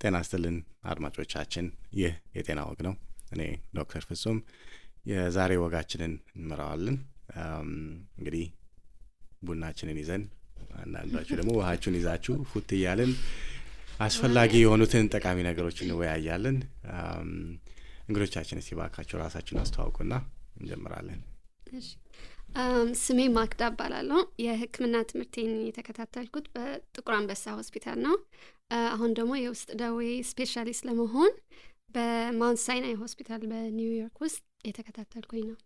ጤና ይስጥልን አድማጮቻችን፣ ይህ የጤና ወግ ነው። እኔ ዶክተር ፍጹም የዛሬ ወጋችንን እንመራዋለን። እንግዲህ ቡናችንን ይዘን አንዳንዳችሁ ደግሞ ውሃችሁን ይዛችሁ ፉት እያልን አስፈላጊ የሆኑትን ጠቃሚ ነገሮችን እንወያያለን። እንግዶቻችን እስቲ ባካችሁ ራሳችሁን አስተዋውቁና እንጀምራለን። እሺ ስሜ ማክዳ እባላለሁ። የሕክምና ትምህርቴን የተከታተልኩት በጥቁር አንበሳ ሆስፒታል ነው። አሁን ደግሞ የውስጥ ደዌ ስፔሻሊስት ለመሆን በማውንት ሳይናይ ሆስፒታል በኒውዮርክ ውስጥ የተከታተልኩኝ ነው።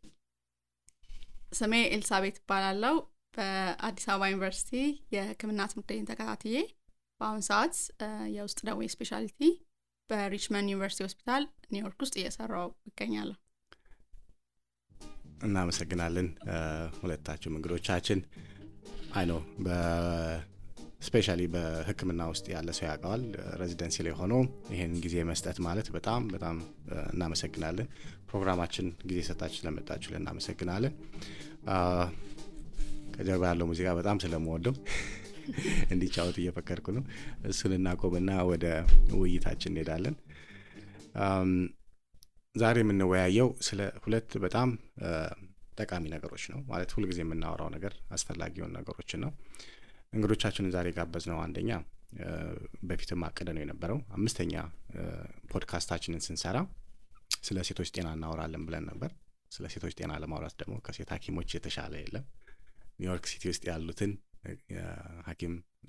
ስሜ ኤልሳቤት እባላለሁ። በአዲስ አበባ ዩኒቨርሲቲ የሕክምና ትምህርቴን ተከታትዬ በአሁን ሰዓት የውስጥ ደዌ ስፔሻሊቲ በሪችመንድ ዩኒቨርሲቲ ሆስፒታል ኒውዮርክ ውስጥ እየሰራው እገኛለሁ። እናመሰግናለን ሁለታችሁም እንግዶቻችን። አይኖ በስፔሻሊ በህክምና ውስጥ ያለ ሰው ያውቀዋል። ሬዚደንሲ ላይ ሆኖ ይሄን ጊዜ መስጠት ማለት በጣም እናመሰግናለን። ፕሮግራማችን ጊዜ ሰጣችሁ ስለመጣችሁ እናመሰግናለን። ከጀርባ ያለው ሙዚቃ በጣም ስለምወደው እንዲጫወት እየፈከርኩ ነው። እሱን እናቆምና ወደ ውይይታችን እንሄዳለን። ዛሬ የምንወያየው ስለ ሁለት በጣም ጠቃሚ ነገሮች ነው። ማለት ሁሉ ጊዜ የምናወራው ነገር አስፈላጊ የሆኑ ነገሮችን ነው። እንግዶቻችንን ዛሬ ጋበዝነው አንደኛ በፊትም አቀደነው የነበረው 5ኛ ፖድካስታችንን ስንሰራ ስለ ሴቶች ጤና እናወራለን ብለን ነበር። ስለ ሴቶች ጤና ለማውራት ደግሞ ከሴት ሐኪሞች የተሻለ የለም። ኒውዮርክ ሲቲ ውስጥ ያሉትን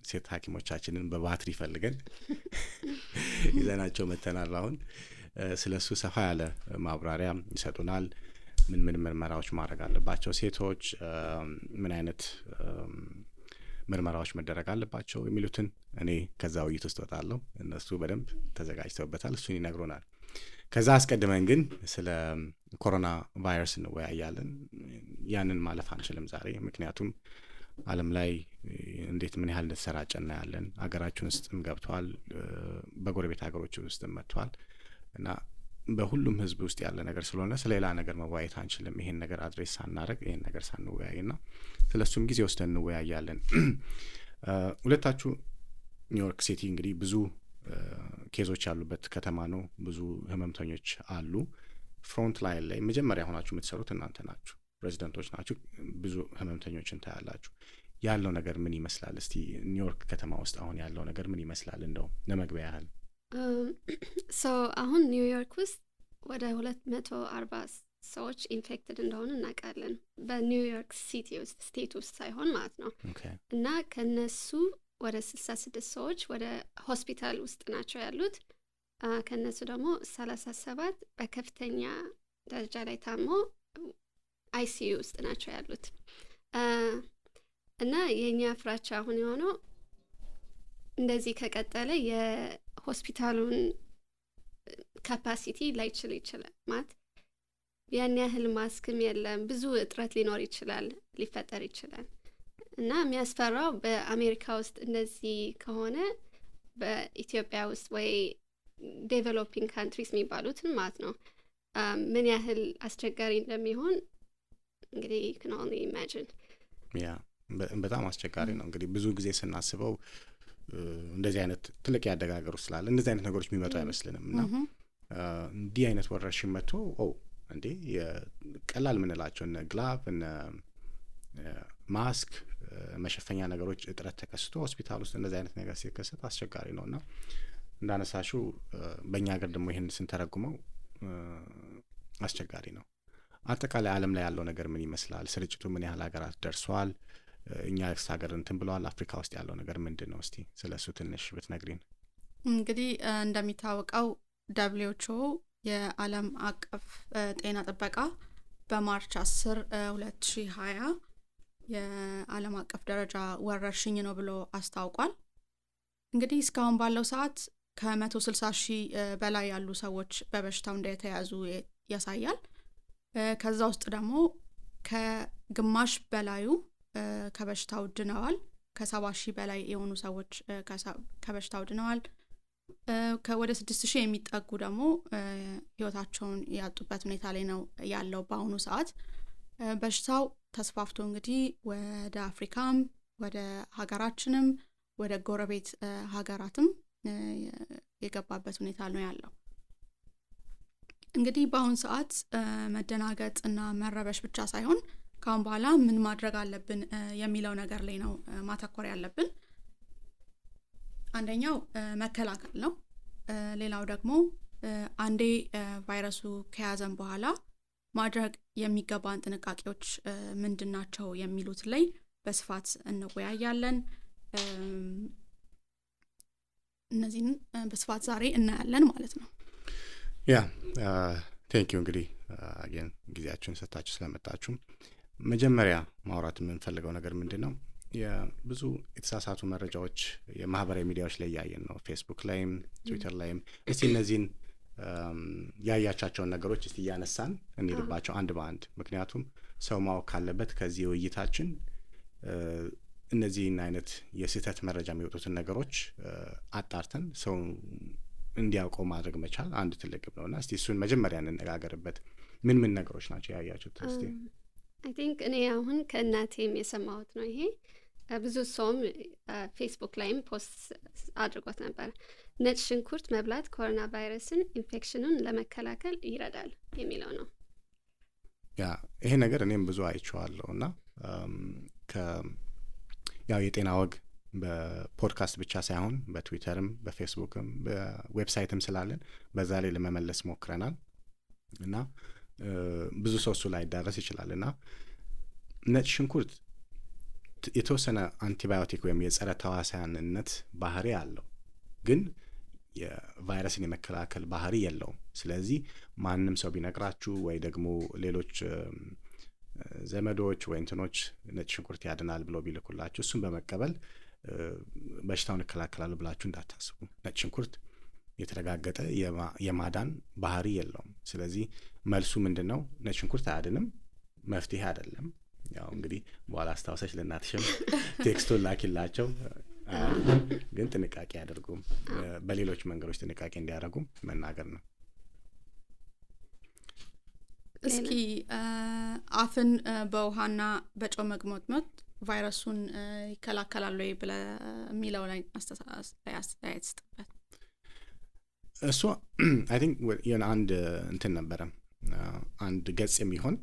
ሴት ሐኪሞቻችንን በባትሪ ፈልገን ይዘናቸው መተናል። አሁን ስለሱ ሰፋ ያለ ማብራሪያ ይሰጡናል። ምን ምርመራዎች ማድረግ አለባቸው ሴቶች፣ ምን አይነት ምርመራዎች መደረግ አለባቸው የሚሉትን እኔ ከዛ ውይይት ውስጥ ወጣለሁ። እነሱ በደንብ ተዘጋጅተውበታል፣ እሱን ይነግሩናል። ከዛ አስቀድመን ግን ስለ ኮሮና ቫይረስ እንወያያለን። ያንን ማለፍ አንችልም ዛሬ፣ ምክንያቱም ዓለም ላይ እንዴት ምን ያህል እንደተሰራጨ እናያለን። አገራችን ውስጥም ገብቷል፣ በጎረቤት ሀገሮች ውስጥም መጥቷል እና በሁሉም ህዝብ ውስጥ ያለ ነገር ስለሆነ ስለሌላ ነገር መወያየት አንችልም። ይሄን ነገር አድሬስ ሳናረግ ይሄን ነገር ሳንወያይና ስለሱም ጊዜ ወስደን እንወያያለን። ሁለታችሁ ኒውዮርክ ሲቲ እንግዲህ ብዙ ኬዞች ያሉበት ከተማ ነው። ብዙ ህመምተኞች አሉ። ፍሮንት ላይን ላይ መጀመሪያ ሆናችሁ የምትሰሩት እናንተ ናችሁ፣ ሬዚደንቶች ናችሁ። ብዙ ህመምተኞችን ታያላችሁ። ያለው ነገር ምን ይመስላል? እስቲ ኒውዮርክ ከተማ ውስጥ አሁን ያለው ነገር ምን ይመስላል? እንደው ለመግቢያ ያህል አሁን ኒውዮርክ ውስጥ ወደ 240 ሰዎች ኢንፌክትድ እንደሆኑ እናውቃለን። በኒውዮርክ ሲቲ ውስጥ ስቴት ውስጥ ሳይሆን ማለት ነው። እና ከነሱ ወደ 66 ሰዎች ወደ ሆስፒታል ውስጥ ናቸው ያሉት። ከነሱ ደግሞ 37 በከፍተኛ ደረጃ ላይ ታሞ አይሲዩ ውስጥ ናቸው ያሉት። እና የኛ ፍራቻ አሁን የሆነው እንደዚህ ከቀጠለ የሆስፒታሉን ካፓሲቲ ላይችል ይችላል። ማለት ያን ያህል ማስክም የለም፣ ብዙ እጥረት ሊኖር ይችላል፣ ሊፈጠር ይችላል። እና የሚያስፈራው በአሜሪካ ውስጥ እንደዚህ ከሆነ በኢትዮጵያ ውስጥ ወይ ዴቨሎፒንግ ካንትሪስ የሚባሉትን ማለት ነው ምን ያህል አስቸጋሪ እንደሚሆን እንግዲህ can only imagine። በጣም አስቸጋሪ ነው። እንግዲህ ብዙ ጊዜ ስናስበው እንደዚህ አይነት ትልቅ ያደጋገሩ ስላለ እንደዚህ አይነት ነገሮች የሚመጡ አይመስልንም እና እንዲህ አይነት ወረርሽኝ መጥቶ እንዴ ቀላል ምንላቸው እነ ግላቭ እነ ማስክ መሸፈኛ ነገሮች እጥረት ተከስቶ ሆስፒታል ውስጥ እንደዚህ አይነት ነገር ሲከሰት አስቸጋሪ ነውና እንዳነሳሹ በእኛ ሀገር ደግሞ ይሄን ስንተረጉመው አስቸጋሪ ነው። አጠቃላይ ዓለም ላይ ያለው ነገር ምን ይመስላል? ስርጭቱ ምን ያህል ሀገራት ደርሷል? እኛ ሀገር እንትን ብለዋል። አፍሪካ ውስጥ ያለው ነገር ምንድነው? እስቲ ስለሱ ትንሽ ብትነግሪን። እንግዲህ እንደሚታወቀው WHO የዓለም አቀፍ ጤና ጥበቃ በማርች 10 2020 የዓለም አቀፍ ደረጃ ወረርሽኝ ነው ብሎ አስታውቋል። እንግዲህ እስካሁን ባለው ሰዓት ከ160,000 በላይ ያሉ ሰዎች በበሽታው እንደተያዙ ያሳያል። ከዛ ውስጥ ደግሞ ከግማሽ በላዩ ከበሽታው ድነዋል። ከ70,000 በላይ የሆኑ ሰዎች ከበሽታው ድነዋል። ከወደ 6,000 የሚጠጉ ደግሞ ህይወታቸውን ያጡበት ሁኔታ ላይ ነው ያለው በአሁኑ ሰዓት። በሽታው ተስፋፍቶ እንግዲህ ወደ አፍሪካም ወደ ሀገራችንም ወደ ጎረቤት ሀገራትም የገባበት ሁኔታ ነው ያለው። እንግዲህ በአሁን ሰዓት መደናገጥ እና መረበሽ ብቻ ሳይሆን ካሁን በኋላ ምን ማድረግ አለብን የሚለው ነገር ላይ ነው ማተኮር ያለብን። አንደኛው መከላከል ነው። ሌላው ደግሞ አንዴ ቫይረሱ ከያዘን በኋላ ማድረግ የሚገባን ጥንቃቄዎች ምንድናቸው የሚሉት ላይ በስፋት እንወያያለን። እነዚህን በስፋት ዛሬ እናያለን ማለት ነው። ቴንክ ዩ እንግዲህ አገን ጊዜያችሁን ሰጣችሁ ስለመጣችሁ። መጀመሪያ ማውራት የምንፈልገው ነገር ምንድነው? የብዙ የተሳሳቱ መረጃዎች የማህበራዊ ሚዲያዎች ላይ ያያየን ነው። ፌስቡክ ላይም ትዊተር ላይም እስቲ እነዚህን ያያቻቸውን ነገሮች እስቲ ያነሳን እንይልባቸው አንድ በአንድ። ምክንያቱም ሰው ማወቅ ካለበት ከዚህ ውይይታችን እነዚህን አይነት የስህተት መረጃ የሚወጡትን ነገሮች አጣርተን ሰው እንዲያውቀው ማድረግ መቻል አንድ ትልቅ ግብ ነውና እስቲ እሱን መጀመሪያ እንነጋገርበት። ምን ነገሮች ናቸው ያያችሁት? እስቲ I think እኔ አሁን ከእናቴም የሰማሁት ነው። ይሄ ብዙ ሰውም ፌስቡክ ላይም ፖስት አድርጎት ነበር። ነጭ ሽንኩርት መብላት ኮሮና ቫይረስን ኢንፌክሽኑን ለመከላከል ይረዳል የሚለው ነው። ይሄ ነገር እኔም ብዙ አይቼዋለሁና ያው የጤና ወግ በፖድካስት ብቻ ሳይሆን በትዊተርም በፌስቡክም በዌብሳይትም ስላለን በዛ ላይ ለመመለስ ሞክረናል እና ብዙ ሰው እሱ ላይ ዳረስ ይችላልና ነጭ ሽንኩርት የተወሰነ አንቲባዮቲክ ወይም የጸረ ተዋሳያንነት ባህሪ አለው፣ ግን የቫይረስን የመከላከል ባህሪ የለውም። ስለዚህ ማንም ሰው ቢነግራችሁ ወይ ደግሞ ሌሎች ዘመዶች ወይ እንትኖች ነጭ ሽንኩርት ያድናል ብሎ ቢልኩላችሁ እሱን በመቀበል በሽታውን ይከላከላል ብላችሁ እንዳታስቡ። ነጭ ሽንኩርት የተረጋገጠ የማዳን ባህሪ የለውም። ስለዚህ መልሱ ምንድነው? ነጭ ሽንኩርት አያድንም፣ መፍትሄ አይደለም። ያው እንግዲህ በኋላ አስታውሰሽ ለእናትሽም ቴክስቱን ላኪላቸው። ግን ጥንቃቄ ያደርጉ፣ በሌሎች መንገዶች ጥንቃቄ እንዲያደርጉ መናገር ነው። እስኪ አፍን በውሃና በጨው መግሞጥሞጥ ቫይረሱን ይከላከላል ወይ ብለ የሚለው ላይ አስተያየት ስጥበት። እሱ አይ ቲንክ አንድ እንትን ነበረ፣ አንድ ገጽ የሚሆን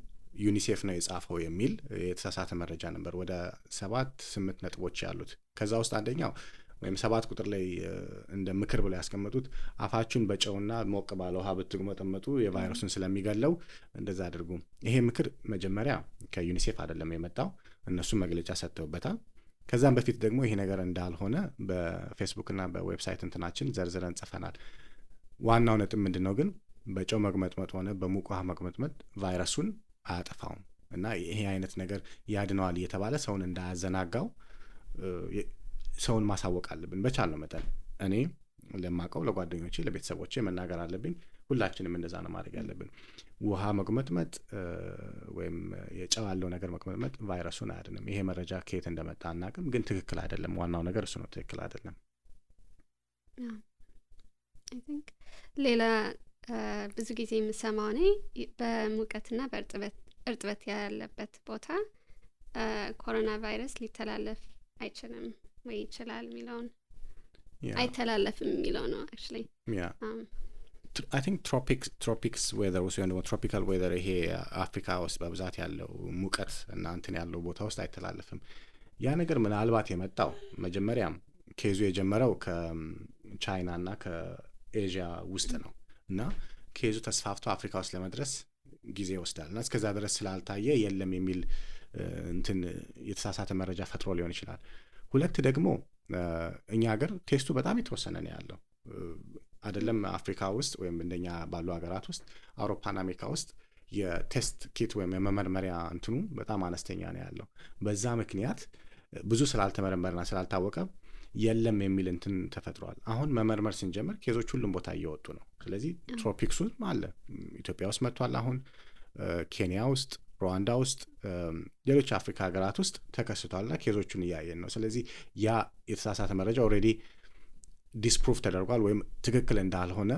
ዩኒሴፍ ነው የጻፈው የሚል የተሳሳተ መረጃ ነበር። ወደ 7-8 ነጥቦች ያሉት። ከዛ ውስጥ አንደኛው ወይም 7 ቁጥር ላይ እንደ ምክር ብለው ያስቀመጡት አፋችሁን በጨውና ሞቅ ባለ ውሃ ብትግመጠመጡ የቫይረሱን ስለሚገለው እንደዛ አድርጉ። ይሄ ምክር መጀመሪያ ከዩኒሴፍ አይደለም የመጣው፣ እነሱ መግለጫ ሰጥተውበታል። ከዛም በፊት ደግሞ ይሄ ነገር እንዳልሆነ በፌስቡክና በዌብሳይት እንትናችን ዘርዝረን ጽፈናል። ዋናው ነጥብ ምንድነው ግን በጨው መግመጥመጥ ሆነ በሙቅ ውሃ መግመጥመጥ ቫይረሱን አያጠፋውም እና ይሄ አይነት ነገር ያድነዋል እየተባለ ሰውን እንዳያዘናጋው ሰውን ማሳወቅ አለብን በቻልነው መጠን። እኔ ለማቀው ለጓደኞቼ ለቤተሰቦቼ መናገር አለብኝ። ሁላችንም እንደዛ ነው ማድረግ ያለብን። ውሃ መግመጥመጥ ወይም የጨው ያለው ነገር መግመጥመጥ ቫይረሱን አያድንም። ይሄ መረጃ ከየት እንደመጣ አናውቅም፣ ግን ትክክል አይደለም። ዋናው ነገር እሱ ነው፣ ትክክል አይደለም። I think ሌላ ብዙ ጊዜ የምሰማው እኔ በሙቀትና በእርጥበት ያለበት ቦታ ኮሮና ቫይረስ ሊተላለፍ አይችልም ወይ ይችላል የሚለውን አይተላለፍም የሚለው ነው actually I think tropics weather ውስጥ ወይም tropical weather ይሄ አፍሪካ ውስጥ በብዛት ያለው ሙቀት እና እንትን ያለው ቦታ ውስጥ አይተላለፍም። ያ ነገር ምናልባት የመጣው መጀመሪያ ኬዙ የጀመረው ከቻይና እና ከኤዥያ ውስጥ ነው እና ኬዙ ተስፋፍቶ አፍሪካ ውስጥ ለመድረስ ጊዜ ይወስዳል እና እስከዛ ድረስ ስላልታየ የለም የሚል እንትን የተሳሳተ መረጃ ፈጥሮ ሊሆን ይችላል። ሁለት ደግሞ እኛ ሀገር ቴስቱ በጣም የተወሰነ ነው ያለው አይደለም። አፍሪካ ውስጥ ወይም እንደኛ ባሉ ሀገራት ውስጥ አውሮፓና አሜሪካ ውስጥ የቴስት ኪት ወይም የመመርመሪያ እንትኑ በጣም አነስተኛ ነው ያለው። በዛ ምክንያት ብዙ ስላልተመረመረና ስላልታወቀ የለም የሚል እንትን ተፈጥሯል። አሁን መመርመር ስንጀምር ኬዞች ሁሉም ቦታ እየወጡ ነው። ስለዚህ ትሮፒክሱ አለ፣ ኢትዮጵያ ውስጥ መጥቷል። አሁን ኬንያ ውስጥ፣ ሩዋንዳ ውስጥ፣ ሌሎች አፍሪካ ሀገራት ውስጥ ተከስቷልና ኬዞቹን እያየን ነው። ስለዚህ ያ የተሳሳተ መረጃ ኦልሬዲ ዲስፕሩቭ ተደርጓል ወይም ትክክል እንዳልሆነ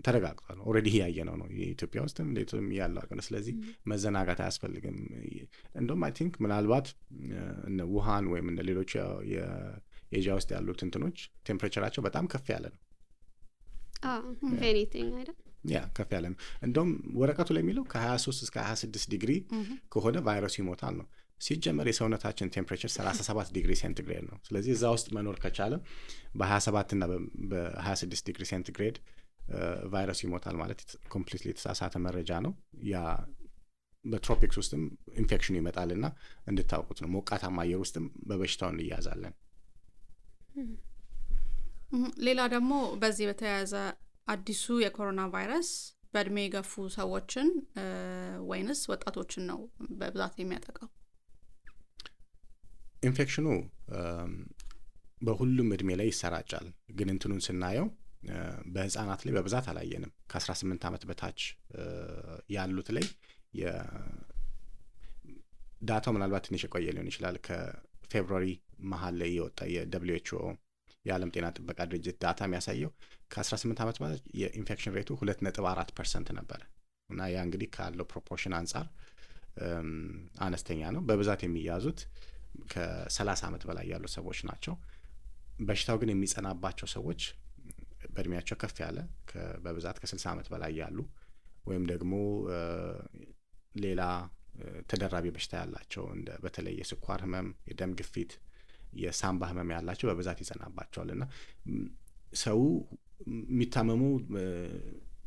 ተረጋግጧል። ኦልሬዲ ያየነው ነው የኢትዮጵያ ውስጥም ሌሎችም ያለው አገር። ስለዚህ መዘናጋት አያስፈልግም። እንደውም አይ ቲንክ ምናልባት እነ ውሃን ወይም እነ ሌሎች ኤዥያ ውስጥ ያሉት እንትኖች ቴምፕሬቸራቸው በጣም ከፍ ያለ ነው። ኤኒቲንግ አይደል? ያ ከፍ ያለ ነው። እንደውም ወረቀቱ ላይ የሚለው ከ23 እስከ 26 ዲግሪ ከሆነ ቫይረሱ ይሞታል ነው። ሲጀመር የሰውነታችን ቴምፕሬቸር 37 ዲግሪ ሴንቲግሬድ ነው። ስለዚህ እዛ ውስጥ መኖር ከቻለ በ27 እና በ26 ዲግሪ ሴንቲግሬድ ቫይረሱ ይሞታል ማለት ኮምፕሊትሊ የተሳሳተ መረጃ ነው። ያ በትሮፒክስ ውስጥም ኢንፌክሽኑ ይመጣልና እንድታውቁት ነው። ሞቃታማ አየር ውስጥም በበሽታው እንያዛለን። ሌላ ደግሞ በዚህ በተያያዘ አዲሱ የኮሮና ቫይረስ በእድሜ የገፉ ሰዎችን ወይንስ ወጣቶችን ነው በብዛት የሚያጠቃው? ኢንፌክሽኑ በሁሉም እድሜ ላይ ይሰራጫል። ግን እንትኑን ስናየው በህፃናት ላይ በብዛት አላየንም። ከ18 ዓመት በታች ያሉት ላይ ዳታው ምናልባት ትንሽ የቆየ ሊሆን ይችላል። ከፌብሩዋሪ መሀል ላይ የወጣ የWHO የዓለም ጤና ጥበቃ ድርጅት ዳታ የሚያሳየው ከ18 ዓመት በታች የኢንፌክሽን ሬቱ 2.4% ነበረ እና ያ እንግዲህ ካለው ፕሮፖርሽን አንጻር አነስተኛ ነው። በብዛት የሚያዙት ከ30 ዓመት በላይ ያሉ ሰዎች ናቸው። በሽታው ግን የሚጸናባቸው ሰዎች በእድሜያቸው ከፍ ያለ በብዛት ከ60 ዓመት በላይ ያሉ ወይም ደግሞ ሌላ ተደራቢ በሽታ ያላቸው እንደ በተለይ የስኳር ህመም፣ የደም ግፊት፣ የሳምባ ህመም ያላቸው በብዛት ይጸናባቸዋል እና ሰው የሚታመሙ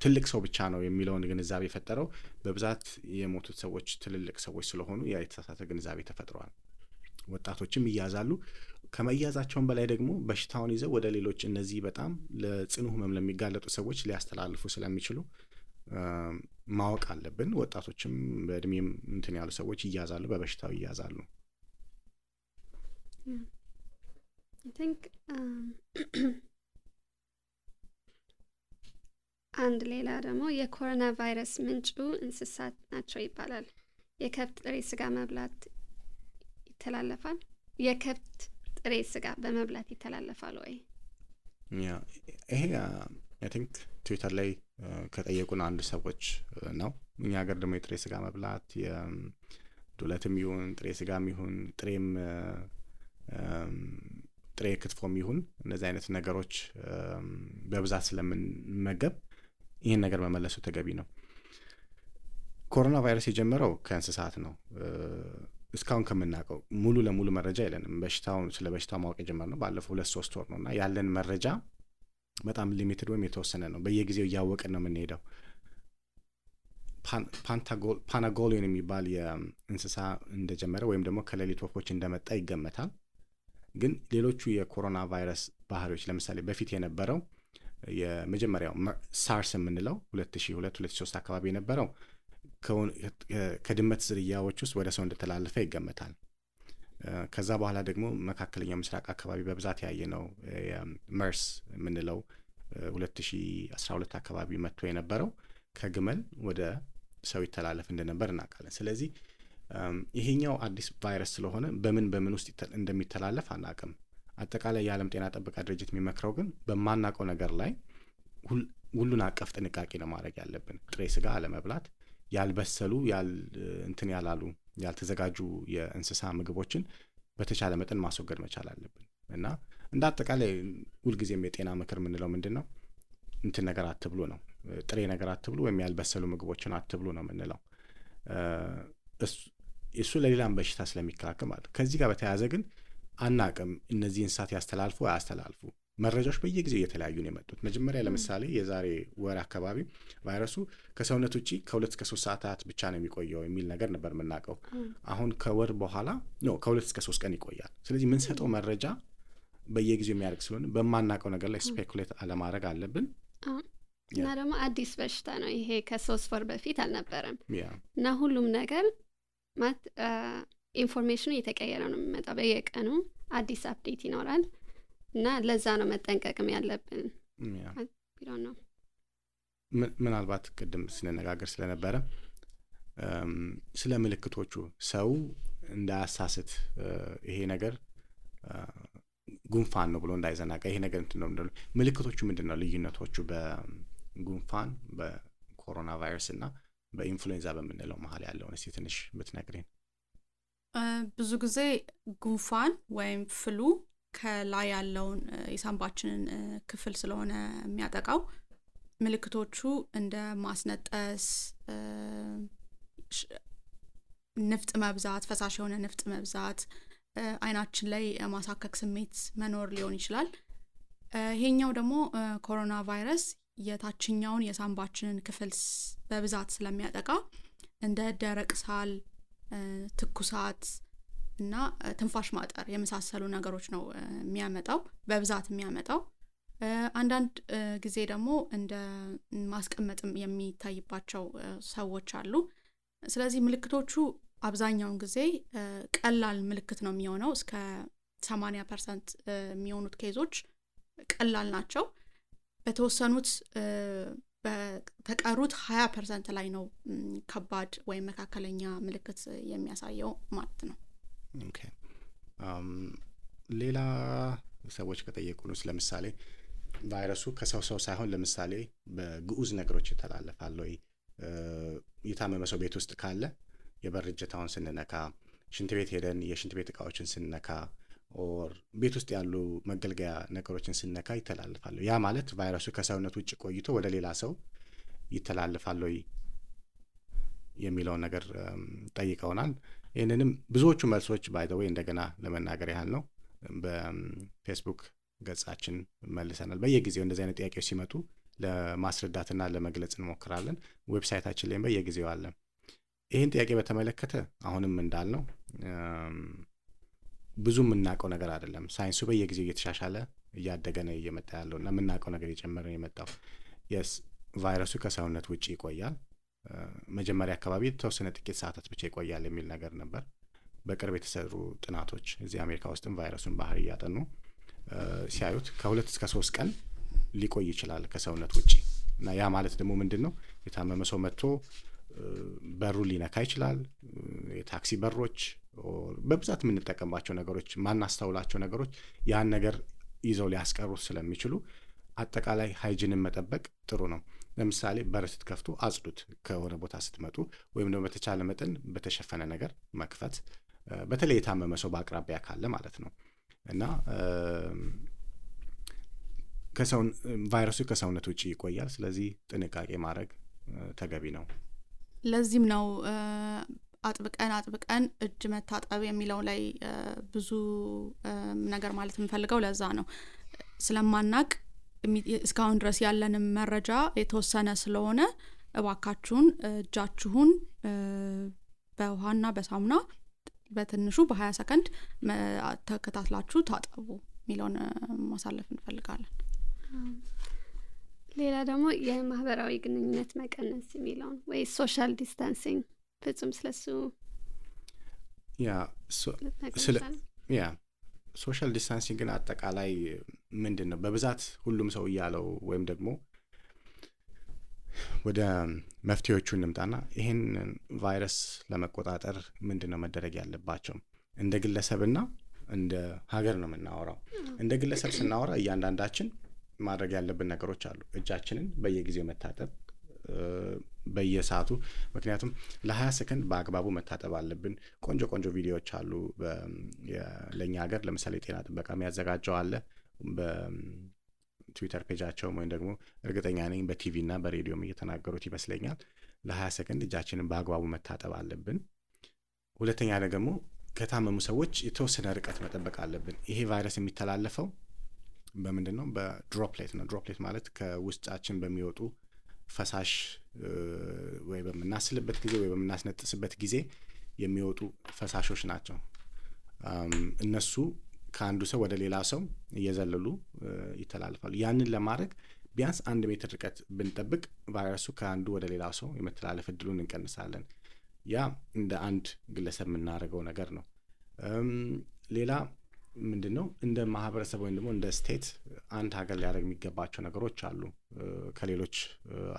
ትልቅ ሰው ብቻ ነው የሚለውን ግንዛቤ የፈጠረው በብዛት የሞቱት ሰዎች ትልልቅ ሰዎች ስለሆኑ ያ የተሳሳተ ግንዛቤ ተፈጥሯል። ወጣቶችም ይያዛሉ። ከመያዛቸውን በላይ ደግሞ በሽታውን ይዘው ወደ ሌሎች እነዚህ በጣም ለጽኑ ህመም ለሚጋለጡ ሰዎች ሊያስተላልፉ ስለሚችሉ ማወቅ አለብን። ወጣቶችም በእድሜም እንትን ያሉ ሰዎች ይያዛሉ፣ በበሽታው ይያዛሉ። I think አንድ ሌላ ደግሞ የኮሮና ቫይረስ ምንጩ እንስሳት ናቸው ይባላል። የከብት ጥሬ ስጋ መብላት ይተላለፋል? የከብት ጥሬ ስጋ በመብላት ይተላለፋል ወይ? ያ ይሄ አይ ቲንክ ትዊተር ላይ ከጠየቁን አንድ ሰዎች ነው። እኛ ሀገር ደግሞ የጥሬ ስጋ መብላት የዱለትም ይሁን ጥሬ ስጋም ይሁን ጥሬ ክትፎም ይሁን እነዚህ አይነት ነገሮች በብዛት ስለምንመገብ ይህን ነገር መመለሱ ተገቢ ነው። ኮሮና ቫይረስ የጀመረው ከእንስሳት ነው። እስካሁን ከምናውቀው ሙሉ ለሙሉ መረጃ የለንም። ስለ በሽታው ማወቅ የጀመርነው ባለፈው 2-3 ወር ነው እና ያለን መረጃ በጣም ሊሚትድ ወይም የተወሰነ ነው። በየጊዜው እያወቅን ነው የምንሄደው። ፓናጎሊዮን የሚባል የእንስሳ እንደጀመረ ወይም ደግሞ ከሌሊት ወፎች እንደመጣ ይገመታል። ግን ሌሎቹ የኮሮና ቫይረስ ባህሪዎች ለምሳሌ በፊት የነበረው የመጀመሪያው ሳርስ የምንለው 2002-2003 አካባቢ የነበረው ከድመት ዝርያዎች ውስጥ ወደ ሰው እንደተላለፈ ይገመታል። ከዛ በኋላ ደግሞ መካከለኛው ምስራቅ አካባቢ በብዛት ያየነው መርስ የምንለው 2012 አካባቢ መጥቶ የነበረው ከግመል ወደ ሰው ይተላለፍ እንደነበር እናውቃለን። ስለዚህ ይሄኛው አዲስ ቫይረስ ስለሆነ በምን ውስጥ እንደሚተላለፍ አናውቅም። አጠቃላይ የዓለም ጤና ጥበቃ ድርጅት የሚመክረው ግን በማናውቀው ነገር ላይ ሁሉን አቀፍ ጥንቃቄ ነው ማድረግ ያለብን። ጥሬ ስጋ አለመብላት፣ ያልበሰሉ እንትን ያላሉ ያልተዘጋጁ የእንስሳ ምግቦችን በተቻለ መጠን ማስወገድ መቻል አለብን እና እንደ አጠቃላይ ሁልጊዜም የጤና ምክር የምንለው ምንድን ነው? እንትን ነገር አትብሉ ነው። ጥሬ ነገር አትብሉ ወይም ያልበሰሉ ምግቦችን አትብሉ ነው የምንለው። እሱ ለሌላም በሽታ ስለሚከላከል ማለት። ከዚህ ጋር በተያያዘ ግን አናቅም እነዚህ እንስሳት ያስተላልፉ አያስተላልፉ። መረጃዎች በየጊዜው እየተለያዩ ነው የመጡት። መጀመሪያ ለምሳሌ የዛሬ ወር አካባቢ ቫይረሱ ከሰውነት ውጪ ከ2 እስከ 3 ሰዓታት ብቻ ነው የሚቆየው የሚል ነገር ነበር የምናውቀው። አሁን ከወር በኋላ ከ2 እስከ 3 ቀን ይቆያል። ስለዚህ የምንሰጠው መረጃ በየጊዜው የሚያደርግ ስለሆነ በማናውቀው ነገር ላይ ስፔኩሌት አለማድረግ አለብን። እና ደግሞ አዲስ በሽታ ነው ይሄ፣ ከ3 ወር በፊት አልነበረም እና ሁሉም ነገር ማለት ኢንፎርሜሽኑ እየተቀየረ ነው የሚመጣው። በየቀኑ አዲስ አፕዴት ይኖራል እና ለዛ ነው መጠንቀቅም ያለብን። ቢሆን ነው ምናልባት ቅድም ስንነጋገር ስለነበረ ስለ ምልክቶቹ ሰው እንዳያሳስት ይሄ ነገር ጉንፋን ነው ብሎ እንዳይዘናጋ ይሄ ነገር እንትን ነው። ምልክቶቹ ምንድን ነው ልዩነቶቹ በጉንፋን በኮሮና ቫይረስ እና በኢንፍሉዌንዛ በምንለው መሀል ያለውን እስቲ ትንሽ ብትነግሪን። ብዙ ጊዜ ጉንፋን ወይም ፍሉ ከላይ ያለውን የሳምባችንን ክፍል ስለሆነ የሚያጠቃው ምልክቶቹ እንደ ማስነጠስ፣ ንፍጥ መብዛት፣ ፈሳሽ የሆነ ንፍጥ መብዛት፣ አይናችን ላይ ማሳከክ ስሜት መኖር ሊሆን ይችላል። ይሄኛው ደግሞ ኮሮና ቫይረስ የታችኛውን የሳምባችንን ክፍል በብዛት ስለሚያጠቃ እንደ ደረቅ ሳል፣ ትኩሳት እና ትንፋሽ ማጠር የመሳሰሉ ነገሮች ነው የሚያመጣው በብዛት የሚያመጣው። አንዳንድ ጊዜ ደግሞ እንደ ማስቀመጥም የሚታይባቸው ሰዎች አሉ። ስለዚህ ምልክቶቹ አብዛኛውን ጊዜ ቀላል ምልክት ነው የሚሆነው። እስከ 80% የሚሆኑት ኬዞች ቀላል ናቸው። በተወሰኑት በተቀሩት 20% ላይ ነው ከባድ ወይም መካከለኛ ምልክት የሚያሳየው ማለት ነው። ኦኬ ሌላ ሰዎች ከጠየቁንስ ለምሳሌ ቫይረሱ ከሰው ሰው ሳይሆን ለምሳሌ በግዑዝ ነገሮች ይተላለፋል ወይ? የታመመ ሰው ቤት ውስጥ ካለ የበር እጀታውን ስንነካ፣ ሽንት ቤት ሄደን የሽንት ቤት እቃዎችን ስንነካ ኦር ቤት ውስጥ ያሉ መገልገያ ነገሮችን ስንነካ ይተላለፋል። ያ ማለት ቫይረሱ ከሰውነት ውጭ ቆይቶ ወደ ሌላ ሰው ይተላለፋል ወይ የሚለውን ነገር ጠይቀውናል። ይህንንም ብዙዎቹ መልሶች ባይ ዘ ዌይ እንደገና ለመናገር ያህል ነው በፌስቡክ ገጻችን መልሰናል። በየጊዜው እንደዚህ አይነት ጥያቄዎች ሲመጡ ለማስረዳትና ለመግለጽ እንሞክራለን። ዌብሳይታችን ላይም በየጊዜው አለ። ይህን ጥያቄ በተመለከተ አሁንም እንዳልነው ብዙ የምናውቀው ነገር አይደለም። ሳይንሱ በየጊዜው እየተሻሻለ እያደገ ነው እየመጣ ያለው እና የምናውቀው ነገር እየጨመረ ነው የመጣው። የስ ቫይረሱ ከሰውነት ውጭ ይቆያል። መጀመሪያ አካባቢ የተወሰነ ጥቂት ሰዓታት ብቻ ይቆያል የሚል ነገር ነበር። በቅርብ የተሰሩ ጥናቶች እዚህ አሜሪካ ውስጥም ቫይረሱን ባህሪ እያጠኑ ሲያዩት ከ2 እስከ 3 ቀን ሊቆይ ይችላል ከሰውነት ውጭ እና ያ ማለት ደግሞ ምንድነው የታመመ ሰው መጥቶ በሩ ሊነካ ይችላል። የታክሲ በሮች በብዛት የምንጠቀምባቸው ነገሮች ማናስተውላቸው ነገሮች ያን ነገር ይዘው ሊያስቀሩት ስለሚችሉ አጠቃላይ ሃይጂንን መጠበቅ ጥሩ ነው። ለምሳሌ በር ስትከፍቱ አጽዱት ከሆነ ቦታ ስትመጡ፣ ወይም ደግሞ በተቻለ መጠን በተሸፈነ ነገር መክፈት፣ በተለይ የታመመ ሰው በአቅራቢያ ካለ ማለት ነው እና ቫይረሱ ከሰውነት ውጭ ይቆያል። ስለዚህ ጥንቃቄ ማድረግ ተገቢ ነው። ለዚህም ነው አጥብቀን እጅ መታጠብ የሚለው ላይ ብዙ ነገር ማለት የምፈልገው ለዛ ነው። ስለማናቅ እስካሁን ድረስ ያለንም መረጃ የተወሰነ ስለሆነ እባካችሁን እጃችሁን በውሃና በሳሙና በትንሹ በ20 ሰከንድ ተከታትላችሁ ታጠቡ የሚለውን ማሳለፍ እንፈልጋለን። ሌላ ደግሞ የማህበራዊ ግንኙነት መቀነስ የሚለው ወይ ሶሻል ዲስታንሲንግ ፍጹም ስለሱ ሶሻል ዲስታንሲንግ ግን አጠቃላይ ምንድነው በብዛት ሁሉም ሰው እያለው ወይም ደግሞ ወደ መፍትሄዎቹ እንምጣና ይሄን ቫይረስ ለመቆጣጠር ምንድነው መደረግ ያለባቸው? እንደ ግለሰብና እንደ ሀገር ነው የምናወራው። እንደ ግለሰብ ስናወራ እያንዳንዳችን ማድረግ ያለብን ነገሮች አሉ። እጃችንን በየጊዜው መታጠብ በየሰዓቱ፣ ምክንያቱም ለ20 ሰከንድ በአግባቡ መታጠብ አለብን። ቆንጆ ቪዲዮዎች አሉ ለኛ ሀገር። ለምሳሌ ጤና ጥበቃ የሚያዘጋጀው አለ በትዊተር ፔጃቸው፣ ወይም ደግሞ እርግጠኛ ነኝ በቲቪ እና በሬዲዮም እየተናገሩት ይመስለኛል። ለ20 ሰከንድ እጃችንን በአግባቡ መታጠብ አለብን። ሁለተኛ ደግሞ ከታመሙ ሰዎች የተወሰነ ርቀት መጠበቅ አለብን። ይሄ ቫይረስ የሚተላለፈው በምንድነው? በድሮፕሌት ነው። ድሮፕሌት ማለት ከውስጣችን በሚወጡ ፈሳሽ ወይ በመናስልበት ጊዜ ወይ በመናስነጥስበት ጊዜ የሚወጡ ፈሳሾች ናቸው። እነሱ ከአንዱ ሰው ወደ ሌላ ሰው እየዘለሉ ይተላለፋሉ። ያንን ለማድረግ ቢያንስ 1 ሜትር ርቀት ብንጠብቅ ቫይረሱ ከአንዱ ወደ ሌላ ሰው የመተላለፍ እድሉን እንቀንሳለን። ያ እንደ አንድ ግለሰብ የምናደርገው ነገር ነው። ሌላ ምንድነው? እንደ ማህበረሰብ ወይም ደግሞ እንደ ስቴት አንድ ሀገር ሊያደርግ የሚገባቸው ነገሮች አሉ። ከሌሎች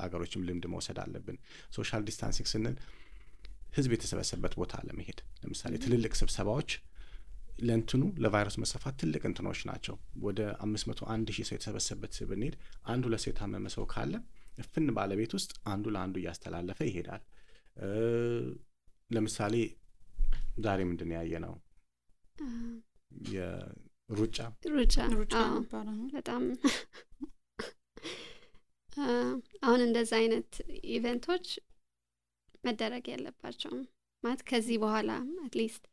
ሀገሮችም ልምድ መውሰድ አለብን። ሶሻል ዲስታንሲንግ ስንል ህዝብ የተሰበሰበበት ቦታ ለመሄድ ለምሳሌ ትልልቅ ስብሰባዎች ለእንትኑ ለቫይረስ መስፋፋት ትልቅ እንትኖች ናቸው። ወደ 501,000 ሰው የተሰበሰበበት ብንሄድ 1-2 ሰው የታመመ ሰው ካለ እፍን ባለቤት ውስጥ አንዱ ለአንዱ እያስተላለፈ ይሄዳል። ለምሳሌ ዛሬ ምንድን ያየ ነው? ሩጫ በጣም አሁን እንደዛ አይነት ኢቨንቶች መደረግ ያለባቸውም ማለት ከዚህ በኋላ አትሊስት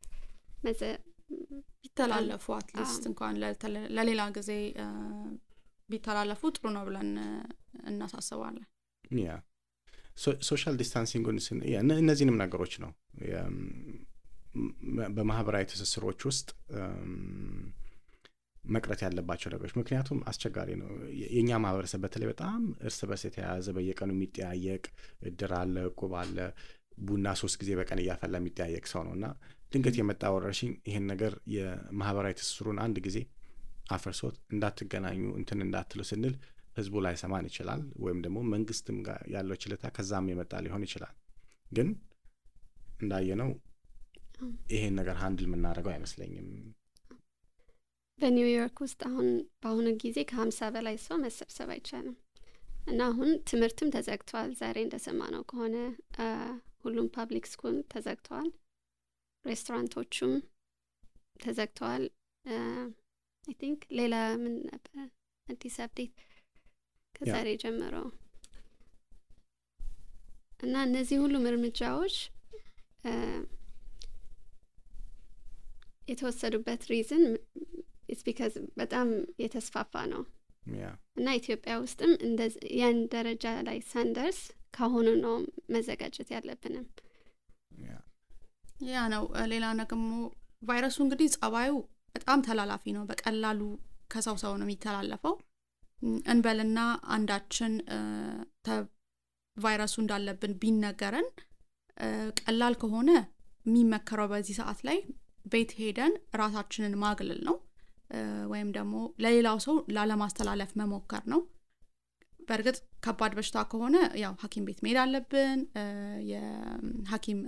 ቢተላለፉ አትሊስት እንኳን ለሌላ ጊዜ ቢተላለፉ ጥሩ ነው ብለን እናሳስባለን። ያ ሶሻል ዲስታንሲንግን እነዚህንም ነገሮች ነው በማህበራዊ ትስስሮች ውስጥ መቅረት ያለባቸው ነገሮች። ምክንያቱም አስቸጋሪ ነው። የኛ ማህበረሰብ በተለይ በጣም እርስ በርስ የተያያዘ በየቀኑ የሚጠያየቅ እድር አለ፣ እቁብ አለ፣ ቡና 3 ጊዜ በቀን እያፈላ የሚጠያየቅ ሰው ነውና ድንገት የመጣ ወረርሽኝ ይሄን ነገር የማህበራዊ ትስስሩን አንድ ጊዜ አፈርሶት እንዳትገናኙ እንትን እንዳትሉ ስንል ህዝቡ ላይ ሰማን ይችላል፣ ወይም ደግሞ መንግስትም ጋር ያለው ችለታ ከዛም የመጣ ሊሆን ይችላል። ግን እንዳየነው ይሄን ነገር ሃንድል የምናደርገው አይመስለኝም። በኒውዮርክ ውስጥ አሁን በአሁኑ ጊዜ ከ50 በላይ ሰው መሰብሰብ አይቻልም እና አሁን ትምህርትም ተዘግቷል። ዛሬ እንደሰማነው ከሆነ ሁሉም ፓብሊክ ስኩል ተዘግተዋል፣ ሬስቶራንቶቹም ተዘግተዋል። አይ ቲንክ ሌላ ምን ነበር አዲስ አፕዴት ከዛሬ ጀምሮ እና እነዚህ ሁሉም እርምጃዎች የተወሰዱበት ሪዝን ኢትስ ቢካዝ በጣም የተስፋፋ ነው እና ኢትዮጵያ ውስጥም ያን ደረጃ ላይ ሳንደርስ ካሁኑ ነው መዘጋጀት ያለብንም። ያ ነው። ሌላ ደግሞ ቫይረሱ እንግዲህ ጸባዩ በጣም ተላላፊ ነው። በቀላሉ ከሰው ሰው ነው የሚተላለፈው። እንበልና አንዳችን ቫይረሱ እንዳለብን ቢነገረን ቀላል ከሆነ የሚመከረው በዚህ ሰዓት ላይ ቤት ሄደን ራሳችንን ማግለል ነው፣ ወይም ደግሞ ለሌላው ሰው ላለማስተላለፍ መሞከር ነው። በእርግጥ ከባድ በሽታ ከሆነ ያው ሐኪም ቤት መሄድ አለብን፣ የሐኪም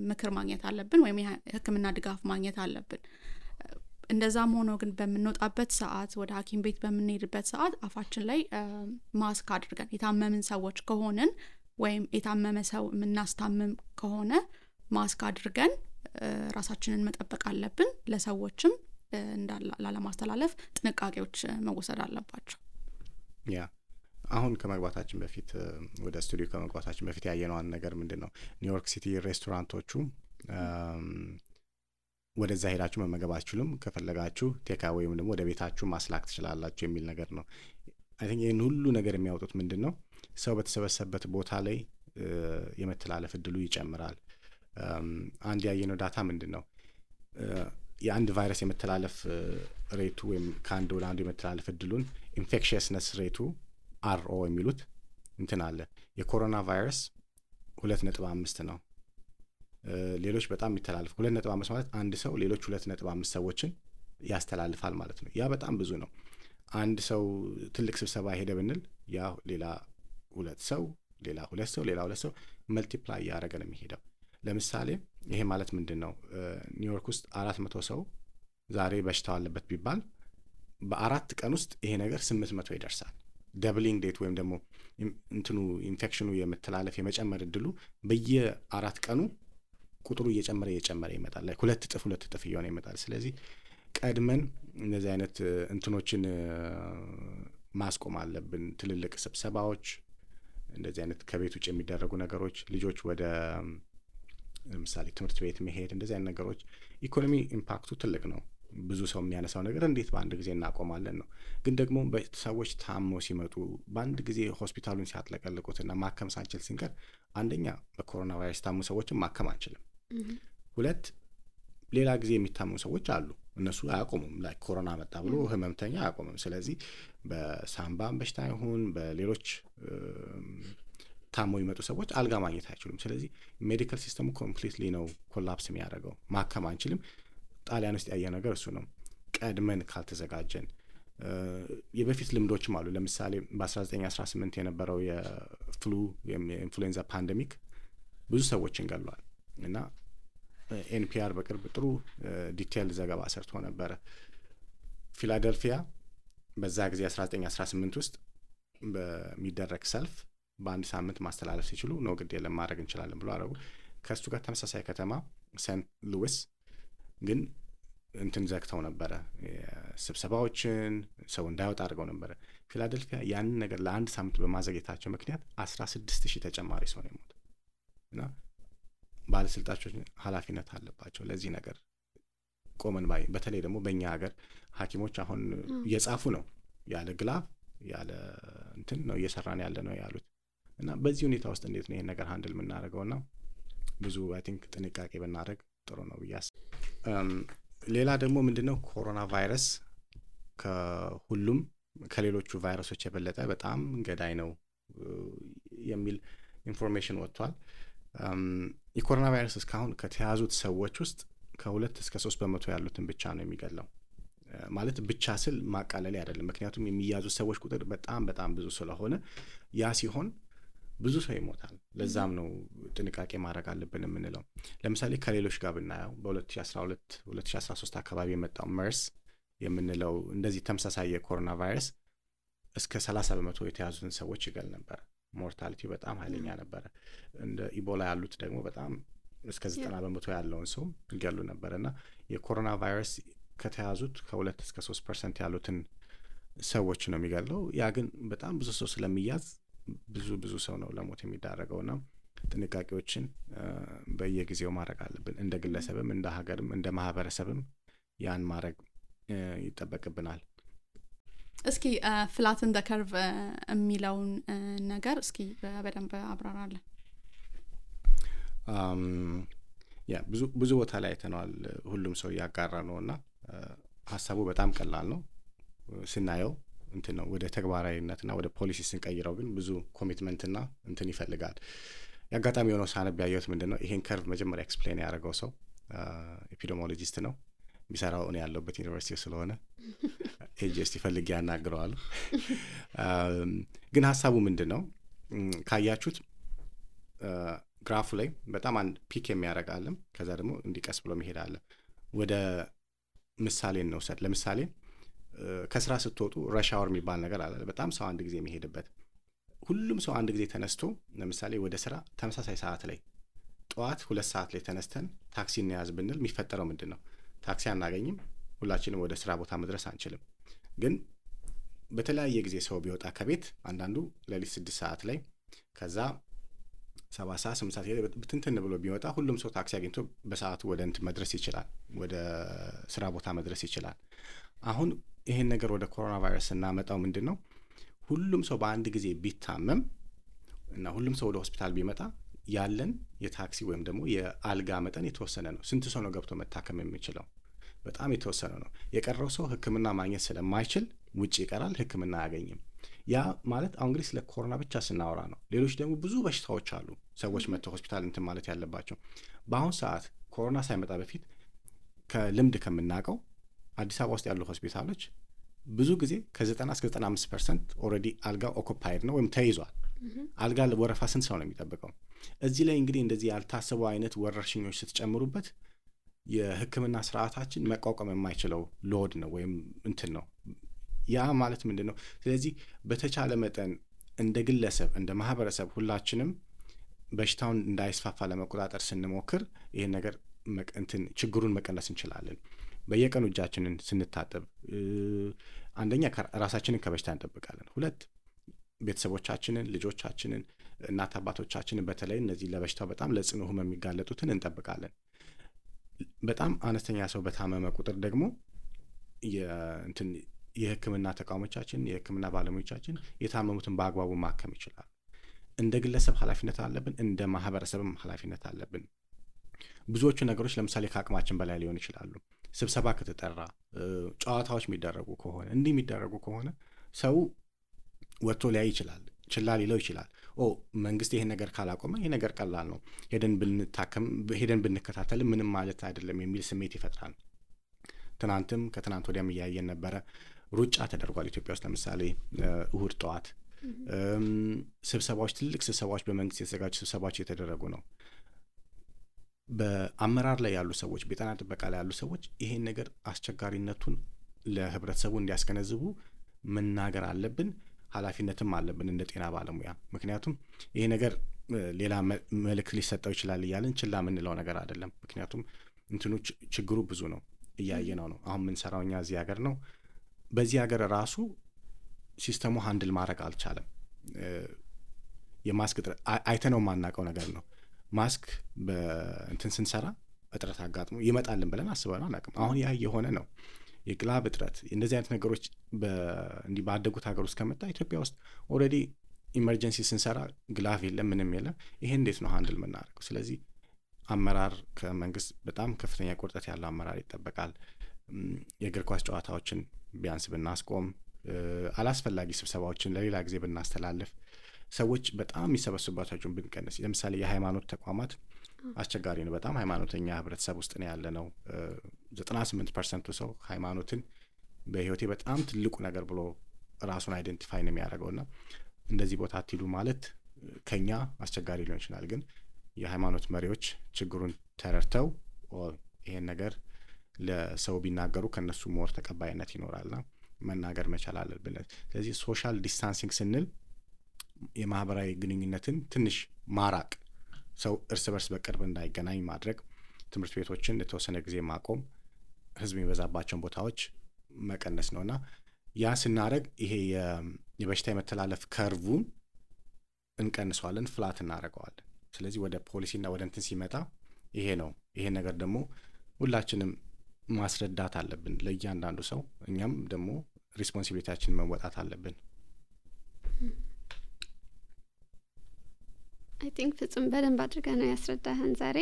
ምክር ማግኘት አለብን፣ ወይም የሕክምና ድጋፍ ማግኘት አለብን። እንደዛም ሆኖ ግን በምንወጣበት ሰዓት ወደ ሐኪም ቤት በምንሄድበት ሰዓት አፋችን ላይ ማስክ አድርገን የታመምን ሰዎች ከሆንን ወይም የታመመ ሰው የምናስታምም ከሆነ ማስክ አድርገን ራሳችንን መጠበቅ አለብን። ለሰዎችም ላለማስተላለፍ ጥንቃቄዎች መወሰድ አለባቸው። ያ አሁን ከመግባታችን በፊት ወደ ስቱዲዮ ከመግባታችን በፊት ያየነው ነገር ምንድነው ኒውዮርክ ሲቲ ሬስቶራንቶቹ ወደዛ ሄዳችሁ መመገብ አትችሉም፣ ከፈለጋችሁ ቴካ ወይም ደግሞ ወደ ቤታችሁ ማስላክ ትችላላችሁ የሚል ነገር ነው። አይ ቲንክ ይሄን ሁሉ ነገር የሚያወጡት ምንድነው ሰው በተሰበሰበበት ቦታ ላይ የመተላለፍ እድሉ ይጨምራል። አንድ ያየነው ዳታ ምንድነው የአንድ ቫይረስ የመተላለፍ ሬቱ ወይም ከአንድ ወደ አንዱ የመተላለፍ እድሉን ኢንፌክሽየስነስ ሬቱ አርኦ የሚሉት እንትን አለ። የኮሮና ቫይረስ 2.5 ነው። ሌሎች በጣም የሚተላለፍ 2.5 ማለት አንድ ሰው ሌሎች 2.5 ሰዎችን ያስተላልፋል ማለት ነው። ያ በጣም ብዙ ነው። አንድ ሰው ትልቅ ስብሰባ ሄደ ብንል ያ ሌላ 2 ሰው ሌላ 2 ሰው ሌላ 2 ሰው መልቲፕላይ ያደረገ ነው የሚሄደው። ለምሳሌ ይሄ ማለት ምንድነው ኒውዮርክ ውስጥ 400 ሰው ዛሬ በሽታው አለበት ቢባል በ4 ቀን ውስጥ ይሄ ነገር 800 ይደርሳል። ደብሊንግ ዴት ወይም ደግሞ እንትኑ ኢንፌክሽኑ የመተላለፍ የመጨመር እድሉ በየ4 ቀኑ ቁጥሩ እየጨመረ ይመጣል። ላይ 2 እጥፍ እየሆነ ይመጣል። ስለዚህ ቀድመን እነዚህ አይነት እንትኖችን ማስቆም አለብን። ትልልቅ ስብሰባዎች፣ እንደዚህ አይነት ከቤት ውጭ የሚደረጉ ነገሮች፣ ልጆች ወደ ለምሳሌ ትምህርት ቤት መሄድ፣ እንደዚህ አይነት ነገሮች ኢኮኖሚ ኢምፓክቱ ትልቅ ነው። ብዙ ሰው የሚያነሳው ነገር እንዴት በአንድ ጊዜ እናቆማለን ነው። ግን ደግሞ ሰዎች ታመው ሲመጡ በአንድ ጊዜ ሆስፒታሉን ሲያጥለቀልቁትና ማከም ሳንችል ሲንቀር አንደኛ በኮሮና ቫይረስ ታሙ ሰዎችን ማከም አንችልም። 2 ሌላ ጊዜ የሚታሙ ሰዎች አሉ። እነሱ አያቆሙም። ላይ ኮሮና መጣ ብሎ ህመምተኛ አያቆምም። ስለዚህ በሳምባ በሽታ ይሁን በሌሎች ታሞ ይመጡ ሰዎች አልጋ ማግኘት አይችሉም። ስለዚህ ሜዲካል ሲስተሙ ኮምፕሊትሊ ነው ኮላፕስ የሚያደርገው። ማከም አንችልም። ጣሊያን ውስጥ ያየ ነገር እሱ ነው። ቀድመን ካልተዘጋጀን የበፊት ልምዶችም አሉ። ለምሳሌ በ1918 የነበረው የፍሉ የኢንፍሉዌንዛ ፓንደሚክ ብዙ ሰዎችን ገሏል እና ኤንፒአር በቅርብ ጥሩ ዲቴይል ዘገባ ሰርቶ ነበረ። ፊላደልፊያ በዛ ጊዜ 1918 ውስጥ በሚደረግ ሰልፍ በአንድ ሳምንት ማስተላለፍ ሲችሉ ነው ግድ የለም ማድረግ እንችላለን ብሎ አረጉ። ከሱ ጋር ተመሳሳይ ከተማ ሴንት ሉዊስ ግን እንትን ዘግተው ነበረ፣ ስብሰባዎችን ሰው እንዳይወጣ አድርገው ነበረ። ፊላደልፊያ ያንን ነገር ለአንድ ሳምንት በማዘግየታቸው ምክንያት 16,000 ተጨማሪ ሰው ነው የሞተው እና ባለስልጣኖች ኃላፊነት አለባቸው ለዚህ ነገር ቆመን ባይ። በተለይ ደግሞ በእኛ ሀገር ሐኪሞች አሁን እየጻፉ ነው ያለ ግላፍ ያለ እንትን ነው እየሰራን ያለ ነው ያሉት እና በዚህ ሁኔታ ውስጥ እንዴት ነው ይሄን ነገር ሃንድል የምናደርገውና ብዙ አይ ቲንክ ጥንቃቄ ብናደርግ ጥሩ ነው ብያስ። ሌላ ደግሞ ምንድነው ኮሮና ቫይረስ ከሁሉም ከሌሎቹ ቫይረሶች የበለጠ በጣም ገዳይ ነው የሚል ኢንፎርሜሽን ወጥቷል። የኮሮና ቫይረስ እስካሁን ከተያዙት ሰዎች ውስጥ ከ2 እስከ 3% ያሉትን ብቻ ነው የሚገለው። ማለት ብቻ ስል ማቃለል አይደለም፣ ምክንያቱም የሚያዙት ሰዎች ቁጥር በጣም በጣም ብዙ ስለሆነ ያ ሲሆን ብዙ ሰው ይሞታል። ለዛም ነው ጥንቃቄ ማድረግ አለብን የምንለው። ለምሳሌ ከሌሎች ጋር ብናየው በ2012 2013 አካባቢ የመጣው መርስ የምንለው እንደዚህ ተመሳሳይ የኮሮና ቫይረስ እስከ 30% የተያዙትን ሰዎች ይገል ነበር። ሞርታሊቲ በጣም ኃይለኛ ነበረ። እንደ ኢቦላ ያሉት ደግሞ በጣም እስከ 90% ያለውን ሰው ይገሉ ነበርና የኮሮና ቫይረስ ከተያዙት ከ2 እስከ 3% ያሉትን ሰዎች ነው የሚገለው። ያ ግን በጣም ብዙ ሰው ስለሚያዝ ብዙ ሰው ነው ለሞት የሚዳረገውና ጥንቃቄዎችን በየጊዜው ማድረግ አለብን። እንደ ግለሰብም እንደ ሀገርም እንደ ማህበረሰብም ያን ማድረግ ይጠበቅብናል። እስኪ ፍላትን ዘ ከርቭ የሚለውን ነገር እስኪ በደንብ አብራራለን። ያ ብዙ ቦታ ላይ አይተነዋል። ሁሉም ሰው ያጋራ ነውና ሀሳቡ በጣም ቀላል ነው ስናየው እንትን ነው። ወደ ተግባራዊነትና ወደ ፖሊሲ ስንቀይረው ግን ብዙ ኮሚትመንትና እንትን ይፈልጋል። ያጋጣሚ የሆነው ሳነብ ያየሁት ምንድነው ይሄን ከርቭ መጀመሪያ ኤክስፕሌን ያደረገው ሰው ኤፒዲሞሎጂስት ነው የሚሰራው እኔ ያለሁበት ዩኒቨርሲቲ ስለሆነ ኤጂኤስቲ ፈልጌ ያናግረዋለሁ። ግን ሀሳቡ ምንድነው ካያችሁት ግራፉ ላይ በጣም አንድ ፒክ የሚያደርግ አለ፣ ከዛ ደግሞ እንዲቀስ ብሎ መሄድ አለ። ወደ ምሳሌ እንውሰድ። ለምሳሌ ከስራ ስትወጡ ረሽ አወር የሚባል ነገር አለ፣ በጣም ሰው አንድ ጊዜ የሚሄድበት። ሁሉም ሰው አንድ ጊዜ ተነስቶ ለምሳሌ ወደ ስራ ተመሳሳይ ሰዓት ላይ ጠዋት 2 ሰዓት ላይ ተነስተን ታክሲ እንያዝ ብንል የሚፈጠረው ምንድን ነው? ታክሲ አናገኝም፣ ሁላችንም ወደ ስራ ቦታ መድረስ አንችልም። ግን በተለያየ ጊዜ ሰው ቢወጣ ከቤት አንዳንዱ ሌሊት 6 ሰዓት ላይ ከዛ 7 ሰዓት 8 ሰዓት ብትንትን ብሎ ቢወጣ ሁሉም ሰው ታክሲ አግኝቶ በሰዓቱ ወደ እንትን መድረስ ይችላል፣ ወደ ስራ ቦታ መድረስ ይችላል። አሁን ይሄን ነገር ወደ ኮሮና ቫይረስ እናመጣው ምንድነው? ሁሉም ሰው በአንድ ጊዜ ቢታመም እና ሁሉም ሰው ወደ ሆስፒታል ቢመጣ ያለን የታክሲ ወይም ደግሞ የአልጋ መጠን የተወሰነ ነው። ስንት ሰው ነው ገብቶ መታከም የሚችለው? በጣም የተወሰነ ነው። የቀረው ሰው ሕክምና ማግኘት ስለማይችል ውጪ ይቀራል፣ ሕክምና አያገኝም። ያ ማለት አሁን እንግዲህ ስለ ኮሮና ብቻ ስናወራ ነው። ሌሎች ደግሞ ብዙ በሽታዎች አሉ ሰዎች መጥተው ሆስፒታል እንትን ማለት ያለባቸው። በአሁን ሰዓት ኮሮና ሳይመጣ በፊት ከልምድ ከምናውቀው አዲስ አበባ ውስጥ ያሉ ሆስፒታሎች ብዙ ጊዜ ከ90 እስከ 95% ኦልሬዲ አልጋ ኦኩፓይድ ነው ወይም ተይዟል። አልጋ ወረፋ ስንት ሰው ነው የሚጠብቀው? እዚህ ላይ እንግዲህ እንደዚህ ያልታሰቡ አይነት ወረርሽኞች ስትጨምሩበት የህክምና ስርዓታችን መቋቋም የማይችለው ሎድ ነው ወይም እንትን ነው። ያ ማለት ምንድን ነው? ስለዚህ በተቻለ መጠን እንደ ግለሰብ እንደ ማህበረሰብ ሁላችንም በሽታውን እንዳይስፋፋ ለመቆጣጠር ስንሞክር ይሄን ነገር እንትን ችግሩን መቀነስ እንችላለን። በየቀኑ እጃችንን ስንታጠብ አንደኛ ራሳችንን ከበሽታ እንጠብቃለን። 2 ቤተሰቦቻችንን፣ ልጆቻችንን፣ እናት አባቶቻችንን በተለይ እነዚህ ለበሽታው በጣም ለጽኑ ህመም የሚጋለጡትን እንጠብቃለን። በጣም አነስተኛ ሰው በታመመ ቁጥር ደግሞ የህክምና ተቋሞቻችን የህክምና ባለሙያዎቻችን የታመሙትን በአግባቡ ማከም ይችላል። እንደ ግለሰብ ኃላፊነት አለብን፣ እንደ ማህበረሰብም ኃላፊነት አለብን። ብዙዎቹ ነገሮች ለምሳሌ ከአቅማችን በላይ ሊሆን ይችላሉ። ስብሰባ ከተጠራ፣ ጨዋታዎች የሚደረጉ ከሆነ እንዲህ የሚደረጉ ከሆነ ሰው ወጥቶ ሊያይ ይችላል፣ ችላ ሊለው ይችላል። መንግስት ይሄን ነገር ካላቆመ ይሄ ነገር ቀላል ነው፣ ሄደን ብንታከም ሄደን ብንከታተል ምንም ማለት አይደለም የሚል ስሜት ይፈጥራል። ትናንትም ከትናንት ወዲያም እያየን ነበረ። ሩጫ ተደርጓል ኢትዮጵያ ውስጥ ለምሳሌ እሁድ ጠዋት ስብሰባዎች፣ ትልቅ ስብሰባዎች፣ በመንግስት የተዘጋጁ ስብሰባዎች እየተደረጉ ነው። በአመራር ላይ ያሉ ሰዎች፣ በጤና ጥበቃ ላይ ያሉ ሰዎች ይሄን ነገር አስቸጋሪነቱን ለህብረተሰቡ እንዲያስገነዝቡ መናገር አለብን። ኃላፊነትም አለብን እንደ ጤና ባለሙያ። ምክንያቱም ይሄ ነገር ሌላ መልእክት ሊሰጠው ይችላል እያልን ችላ የምንለው ነገር አይደለም። ምክንያቱም እንትኑ ችግሩ ብዙ ነው። እያየነው ነው። አሁን ምን ሰራው እኛ እዚህ ሀገር ነው። በዚህ ሀገር ራሱ ሲስተሙ ሃንድል ማድረግ አልቻለም። የማስክ እጥረት አይተነው የማናውቀው ነገር ነው። ማስክ በእንትን ስንሰራ እጥረት አጋጥሞ ይመጣልን ብለን አስበነው አናውቅም። አሁን ያ የሆነ ነው። የግላብ እጥረት እንደዚህ አይነት ነገሮች እንዲህ ባደጉት ሀገር ውስጥ ከመጣ ኢትዮጵያ ውስጥ ኦልሬዲ ኢመርጀንሲ ስንሰራ ግላፍ የለም ምንም የለም። ይሄ እንዴት ነው ሃንድል የምናደርገው? ስለዚህ አመራር ከመንግስት በጣም ከፍተኛ ቁርጠት ያለው አመራር ይጠበቃል። የእግር ኳስ ጨዋታዎችን ቢያንስ ብናስቆም፣ አላስፈላጊ ስብሰባዎችን ለሌላ ጊዜ ብናስተላልፍ፣ ሰዎች በጣም የሚሰበስቡባቸውን ብንቀንስ። ለምሳሌ የሃይማኖት ተቋማት አስቸጋሪ ነው በጣም። ሃይማኖተኛ ህብረተሰብ ውስጥ ነው ያለ ነው። 98% ሰው ሃይማኖትን በህይወቴ በጣም ትልቁ ነገር ብሎ ራሱን አይደንቲፋይ ነው የሚያደርገውና እንደዚህ ቦታ አትሂዱ ማለት ከኛ አስቸጋሪ ሊሆን ይችላል። ግን የሃይማኖት መሪዎች ችግሩን ተረድተው ይሄን ነገር ለሰው ቢናገሩ ከነሱ ሞር ተቀባይነት ይኖራልና መናገር መቻል አለብን። ስለዚህ ሶሻል ዲስታንሲንግ ስንል የማህበራዊ ግንኙነትን ትንሽ ማራቅ፣ ሰው እርስ በርስ በቅርብ እንዳይገናኝ ማድረግ፣ ትምህርት ቤቶችን ለተወሰነ ጊዜ ማቆም፣ ህዝብ የሚበዛባቸውን ቦታዎች መቀነስ ነውና ያ ስናደርግ ይሄ የበሽታ የመተላለፍ ከርቡን እንቀንሰዋለን፣ ፍላት እናደርገዋለን። ስለዚህ ወደ ፖሊሲና ወደ እንትን ሲመጣ ይሄ ነው። ይሄ ነገር ደግሞ ሁላችንም ማስረዳት አለብን ለእያንዳንዱ ሰው። እኛም ደግሞ ሪስፖንሲቢሊቲያችንን መወጣት አለብን። አይ ቲንክ ፍጹም በደንብ አድርገህ ነው ያስረዳህን ዛሬ።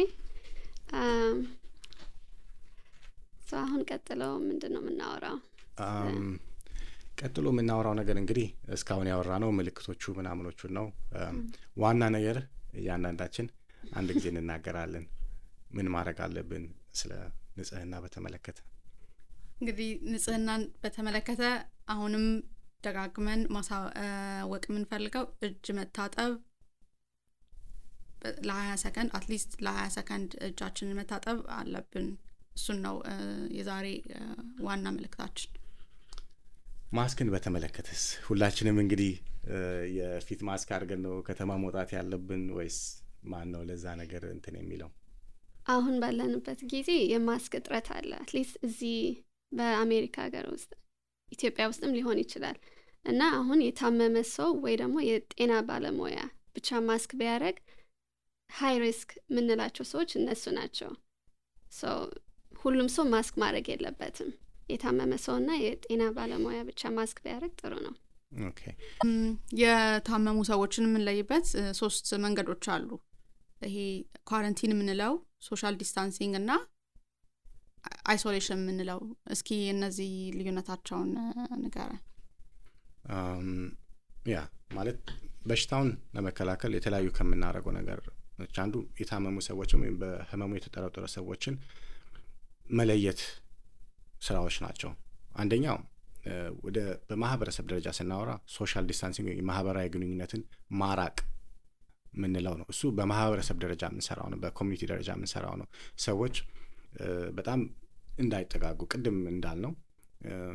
አሁን ቀጥለው ምንድን ነው የምናወራው? ቀጥሎ የምናወራው ነገር እንግዲህ እስካሁን ያወራ ነው ምልክቶቹ ምናምኖቹን ነው። ዋና ነገር እያንዳንዳችን አንድ ጊዜ እንናገራለን። ምን ማድረግ አለብን ስለ ንጽህና በተመለከተ? እንግዲህ ንጽህናን በተመለከተ አሁንም ደጋግመን ማሳወቅ የምንፈልገው እጅ መታጠብ ለ20 ሰከንድ አትሊስት ለ20 ሰከንድ እጃችንን መታጠብ አለብን። እሱን ነው የዛሬ ዋና መልእክታችን። ማስክን በተመለከተስ ሁላችንም እንግዲህ የፊት ማስክ አድርገን ነው ከተማ መውጣት ያለብን ወይስ ማን ነው ለዛ ነገር እንትን የሚለው? አሁን ባለንበት ጊዜ የማስክ እጥረት አለ። አትሊስት እዚህ በአሜሪካ ሀገር ውስጥ ኢትዮጵያ ውስጥም ሊሆን ይችላል እና አሁን የታመመ ሰው ወይ ደግሞ የጤና ባለሙያ ብቻ ማስክ ቢያደርግ ሃይ ሪስክ የምንላቸው ሰዎች እነሱ ናቸው። ሁሉም ሰው ማስክ ማድረግ የለበትም። የታመመ ሰውና የጤና ባለሙያ ብቻ ማስክ ቢያደርግ ጥሩ ነው። ኦኬ። የታመሙ ሰዎችን የምንለይበት 3 መንገዶች አሉ። ይሄ ኳረንቲን የምንለው፣ ሶሻል ዲስታንሲንግ እና አይሶሌሽን የምንለው። እስኪ እነዚህ ልዩነታቸውን ንገረን። ያ ማለት በሽታውን ለመከላከል የተለያዩ ከምናደርገው ነገር አንዱ የታመሙ ሰዎችን ወይም በህመሙ የተጠረጠሩ ሰዎችን መለየት ስራዎች ናቸው። አንደኛው በማህበረሰብ ደረጃ ስናወራ ሶሻል ዲስታንሲንግ የማህበራዊ ግንኙነትን ማራቅ ምንለው ነው። እሱ በማህበረሰብ ደረጃ የምንሰራው ነው፣ በኮሚኒቲ ደረጃ የምንሰራው ነው። ሰዎች በጣም እንዳይጠጋጉ ቅድም እንዳልነው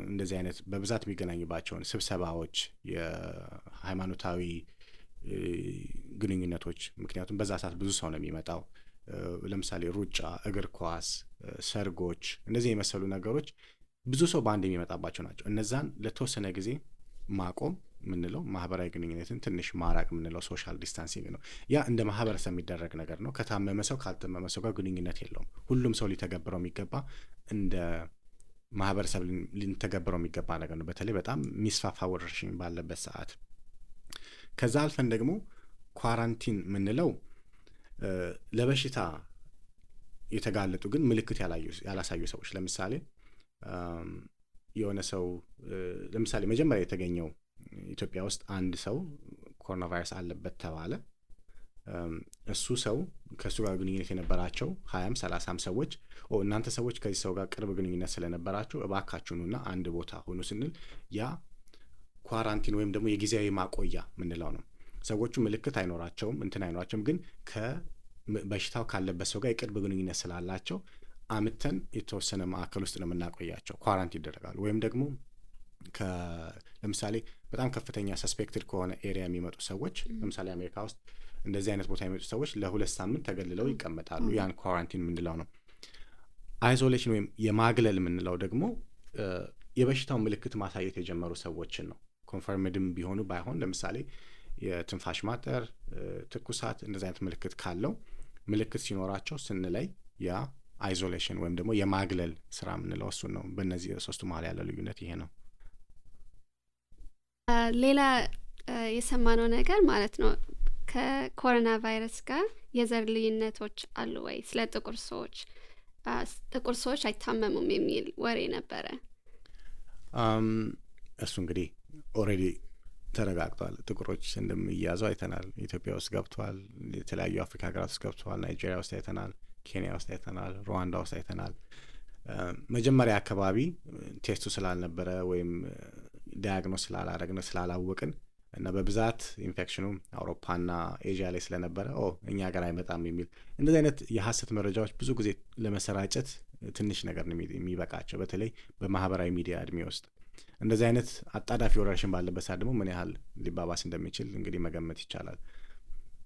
እንደዚህ አይነት በብዛት የሚገናኙባቸውን ስብሰባዎች፣ የሃይማኖታዊ ግንኙነቶች፣ ምክንያቱም በዛ ሰዓት ብዙ ሰው ነው የሚመጣው። ለምሳሌ ሩጫ፣ እግር ኳስ፣ ሰርጎች፣ እንደዚህ የመሰሉ ነገሮች ብዙ ሰው በአንድ የሚመጣባቸው ናቸው። እነዛን ለተወሰነ ጊዜ ማቆም ምንለው ማህበራዊ ግንኙነትን ትንሽ ማራቅ ምንለው ሶሻል ዲስታንሲንግ ነው። ያ እንደ ማህበረሰብ የሚደረግ ነገር ነው። ከታመመ ሰው ካልታመመ ሰው ጋር ግንኙነት የለውም። ሁሉም ሰው ሊተገብረው የሚገባ እንደ ማህበረሰብ ሊተገብረው የሚገባ ነገር ነው። በተለይ በጣም የሚስፋፋ ወረርሽኝ ባለበት ሰዓት። ከዛ አልፈን ደግሞ ኳራንቲን ምንለው ለበሽታ የተጋለጡ ግን ምልክት ያላሳዩ ሰዎች፣ ለምሳሌ የሆነ ሰው ለምሳሌ መጀመሪያ የተገኘው ኢትዮጵያ ውስጥ አንድ ሰው ኮሮና ቫይረስ አለበት ተባለ። እሱ ሰው ከሱ ጋር ግንኙነት የነበራቸው 20-30 ሰዎች እናንተ ሰዎች ከዚህ ሰው ጋር ቅርብ ግንኙነት ስለነበራችሁ እባካችሁኑና አንድ ቦታ ሆኑ ስንል ያ ኳራንቲን ወይም ደግሞ የጊዜያዊ ማቆያ ምንለው ነው። ሰዎቹ ምልክት አይኖራቸውም አይኖራቸውም፣ ግን በሽታው ካለበት ሰው ጋር የቅርብ ግንኙነት ስላላቸው አምተን የተወሰነ ማዕከል ውስጥ ነው የምናቆያቸው፣ ኳራንቲን ይደረጋሉ። ወይም ደግሞ ለምሳሌ በጣም ከፍተኛ ሰስፔክትድ ከሆነ ኤሪያ የሚመጡ ሰዎች፣ ለምሳሌ አሜሪካ ውስጥ እንደዚህ አይነት ቦታ የሚመጡ ሰዎች ለ2 ሳምንት ተገልለው ይቀመጣሉ። ያን ኳራንቲን ምንለው ነው። አይዞሌሽን ወይም የማግለል የምንለው ደግሞ የበሽታው ምልክት ማሳየት የጀመሩ ሰዎችን ነው። ኮንፈርምድም ቢሆኑ ባይሆን ለምሳሌ የትንፋሽ ማጠር፣ ትኩሳት እንደዚህ አይነት ምልክት ካለው ምልክት ሲኖራቸው ስንለይ ያ አይዞሌሽን ወይም ደግሞ የማግለል ስራ የምንለው እሱን ነው። በእነዚህ ሶስቱ መሀል ያለ ልዩነት ይሄ ነው። ሌላ የሰማነው ነገር ማለት ነው ከኮሮና ቫይረስ ጋር የዘር ልዩነቶች አሉ ወይ? ስለ ጥቁር ሰዎች አይታመሙም የሚል ወሬ ነበረ። እሱ እንግዲህ ኦልሬዲ ተረጋግጧል። ጥቁሮች እንደሚያዙ አይተናል። ኢትዮጵያ ውስጥ ገብተዋል። የተለያዩ አፍሪካ ሀገራት ውስጥ ገብተዋል። ናይጄሪያ ውስጥ አይተናል። ኬንያ ውስጥ አይተናል። ሩዋንዳ ውስጥ አይተናል። መጀመሪያ አካባቢ ቴስቱ ስላልነበረ ወይም ዳያግኖስ ስላላረግነ ስላላወቅን እና በብዛት ኢንፌክሽኑ አውሮፓና ኤዥያ ላይ ስለነበረ እኛ ሀገር አይመጣም የሚል እንደዚህ አይነት የሐሰት መረጃዎች ብዙ ጊዜ ለመሰራጨት ትንሽ ነገር ነው የሚበቃቸው። በተለይ በማህበራዊ ሚዲያ እድሜ ውስጥ እንደዚህ አይነት አጣዳፊ ወረርሽኝ ባለበት ሰዓት ደግሞ ምን ያህል ሊባባስ እንደሚችል እንግዲህ መገመት ይቻላል።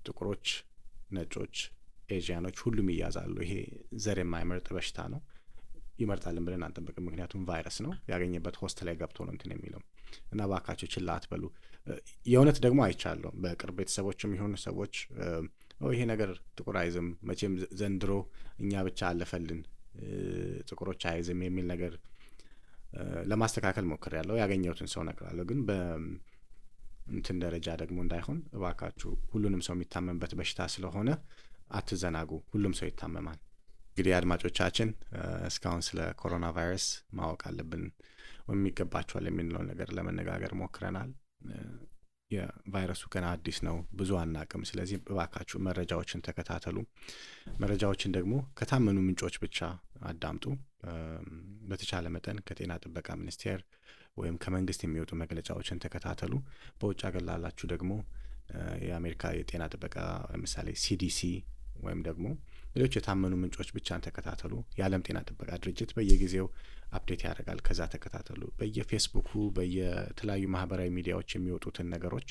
ጥቁሮች፣ ነጮች፣ ኤዥያኖች ሁሉም ይያዛሉ። ይሄ ዘር የማይመርጥ በሽታ ነው። ይመርጣልን ብለን አንጠብቅም። ምክንያቱም ቫይረስ ነው፣ ያገኘበት ሆስት ላይ ገብቶ ነው እንትን የሚለው እና እባካችሁ ችላ አትበሉ። የእውነት ደግሞ አይቻለሁ በቅርብ ቤተሰቦችም የሆኑ ሰዎች ይሄ ነገር ጥቁር አይዝም መቼም ዘንድሮ እኛ ብቻ አለፈልን ጥቁሮች አይዝም የሚል ነገር ለማስተካከል ሞክሬያለሁ። ያገኘሁትን ሰው እነግራለሁ። ግን በእንትን ደረጃ ደግሞ እንዳይሆን እባካችሁ ሁሉንም ሰው የሚታመምበት በሽታ ስለሆነ አትዘናጉ። ሁሉም ሰው ይታመማል። እንግዲህ አድማጮቻችን እስካሁን ስለ ኮሮና ቫይረስ ማወቅ አለብን ወይም ይገባቸዋል የሚለው ነገር ለመነጋገር ሞክረናል። የቫይረሱ ገና አዲስ ነው፣ ብዙ አናቅም። ስለዚህ እባካችሁ መረጃዎችን ተከታተሉ። መረጃዎችን ደግሞ ከታመኑ ምንጮች ብቻ አዳምጡ። በተቻለ መጠን ከጤና ጥበቃ ሚኒስቴር ወይም ከመንግስት የሚወጡ መግለጫዎችን ተከታተሉ። በውጭ ሀገር ላላችሁ ደግሞ የአሜሪካ የጤና ጥበቃ ለምሳሌ ሲዲሲ ወይም ደግሞ ሌሎች የታመኑ ምንጮች ብቻን ተከታተሉ። የዓለም ጤና ጥበቃ ድርጅት በየጊዜው አፕዴት ያደርጋል። ከዛ ተከታተሉ። በየፌስቡኩ በየተለያዩ ማህበራዊ ሚዲያዎች የሚወጡትን ነገሮች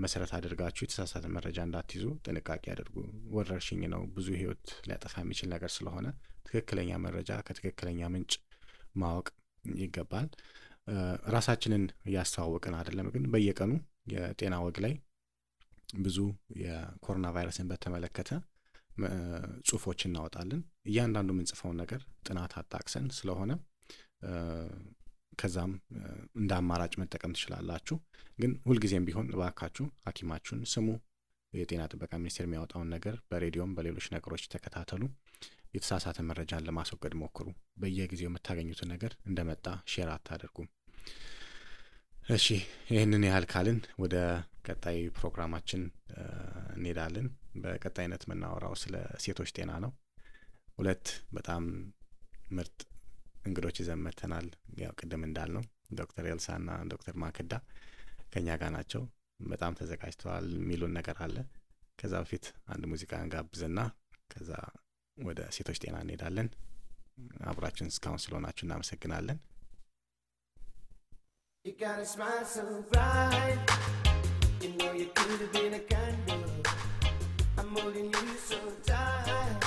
መሰረት አድርጋችሁ የተሳሳተ መረጃ እንዳትይዙ ጥንቃቄ አድርጉ። ወረርሽኝ ነው፣ ብዙ ህይወት ሊያጠፋ የሚችል ነገር ስለሆነ ትክክለኛ መረጃ ከትክክለኛ ምንጭ ማወቅ ይገባል። ራሳችንን እያስተዋወቅን አይደለም፣ ግን በየቀኑ የጤና ወግ ላይ ብዙ የኮሮና ቫይረስን በተመለከተ ጽሁፎች እናወጣለን። እያንዳንዱ የምንጽፈውን ነገር ጥናት አጣቅሰን ስለሆነ ከዛም እንደ አማራጭ መጠቀም ትችላላችሁ። ግን ሁልጊዜም ቢሆን እባካችሁ ሐኪማችሁን ስሙ። የጤና ጥበቃ ሚኒስቴር የሚያወጣውን ነገር በሬዲዮም በሌሎች ነገሮች ተከታተሉ። የተሳሳተ መረጃን ለማስወገድ ሞክሩ። በየጊዜው የምታገኙትን ነገር እንደመጣ ሼር አታደርጉ። እሺ፣ ይህንን ያህል ካልን ወደ ቀጣይ ፕሮግራማችን እንሄዳለን። በቀጣይነት የምናወራው ስለ ሴቶች ጤና ነው። ሁለት በጣም ምርጥ እንግዶች ይዘን መጥተናል። ያው ቅድም እንዳልነው ዶክተር ኤልሳና ዶክተር ማክዳ ከኛ ጋር ናቸው። በጣም ተዘጋጅተዋል። የሚሉን ነገር አለ። ከዛ በፊት አንድ ሙዚቃ እንጋብዝና ከዛ ወደ ሴቶች ጤና እንሄዳለን። አብራችን እስካሁን ስለሆናችሁ እናመሰግናለን። You got a smile so bright, you know you could have been a candle, I'm holding you so tight.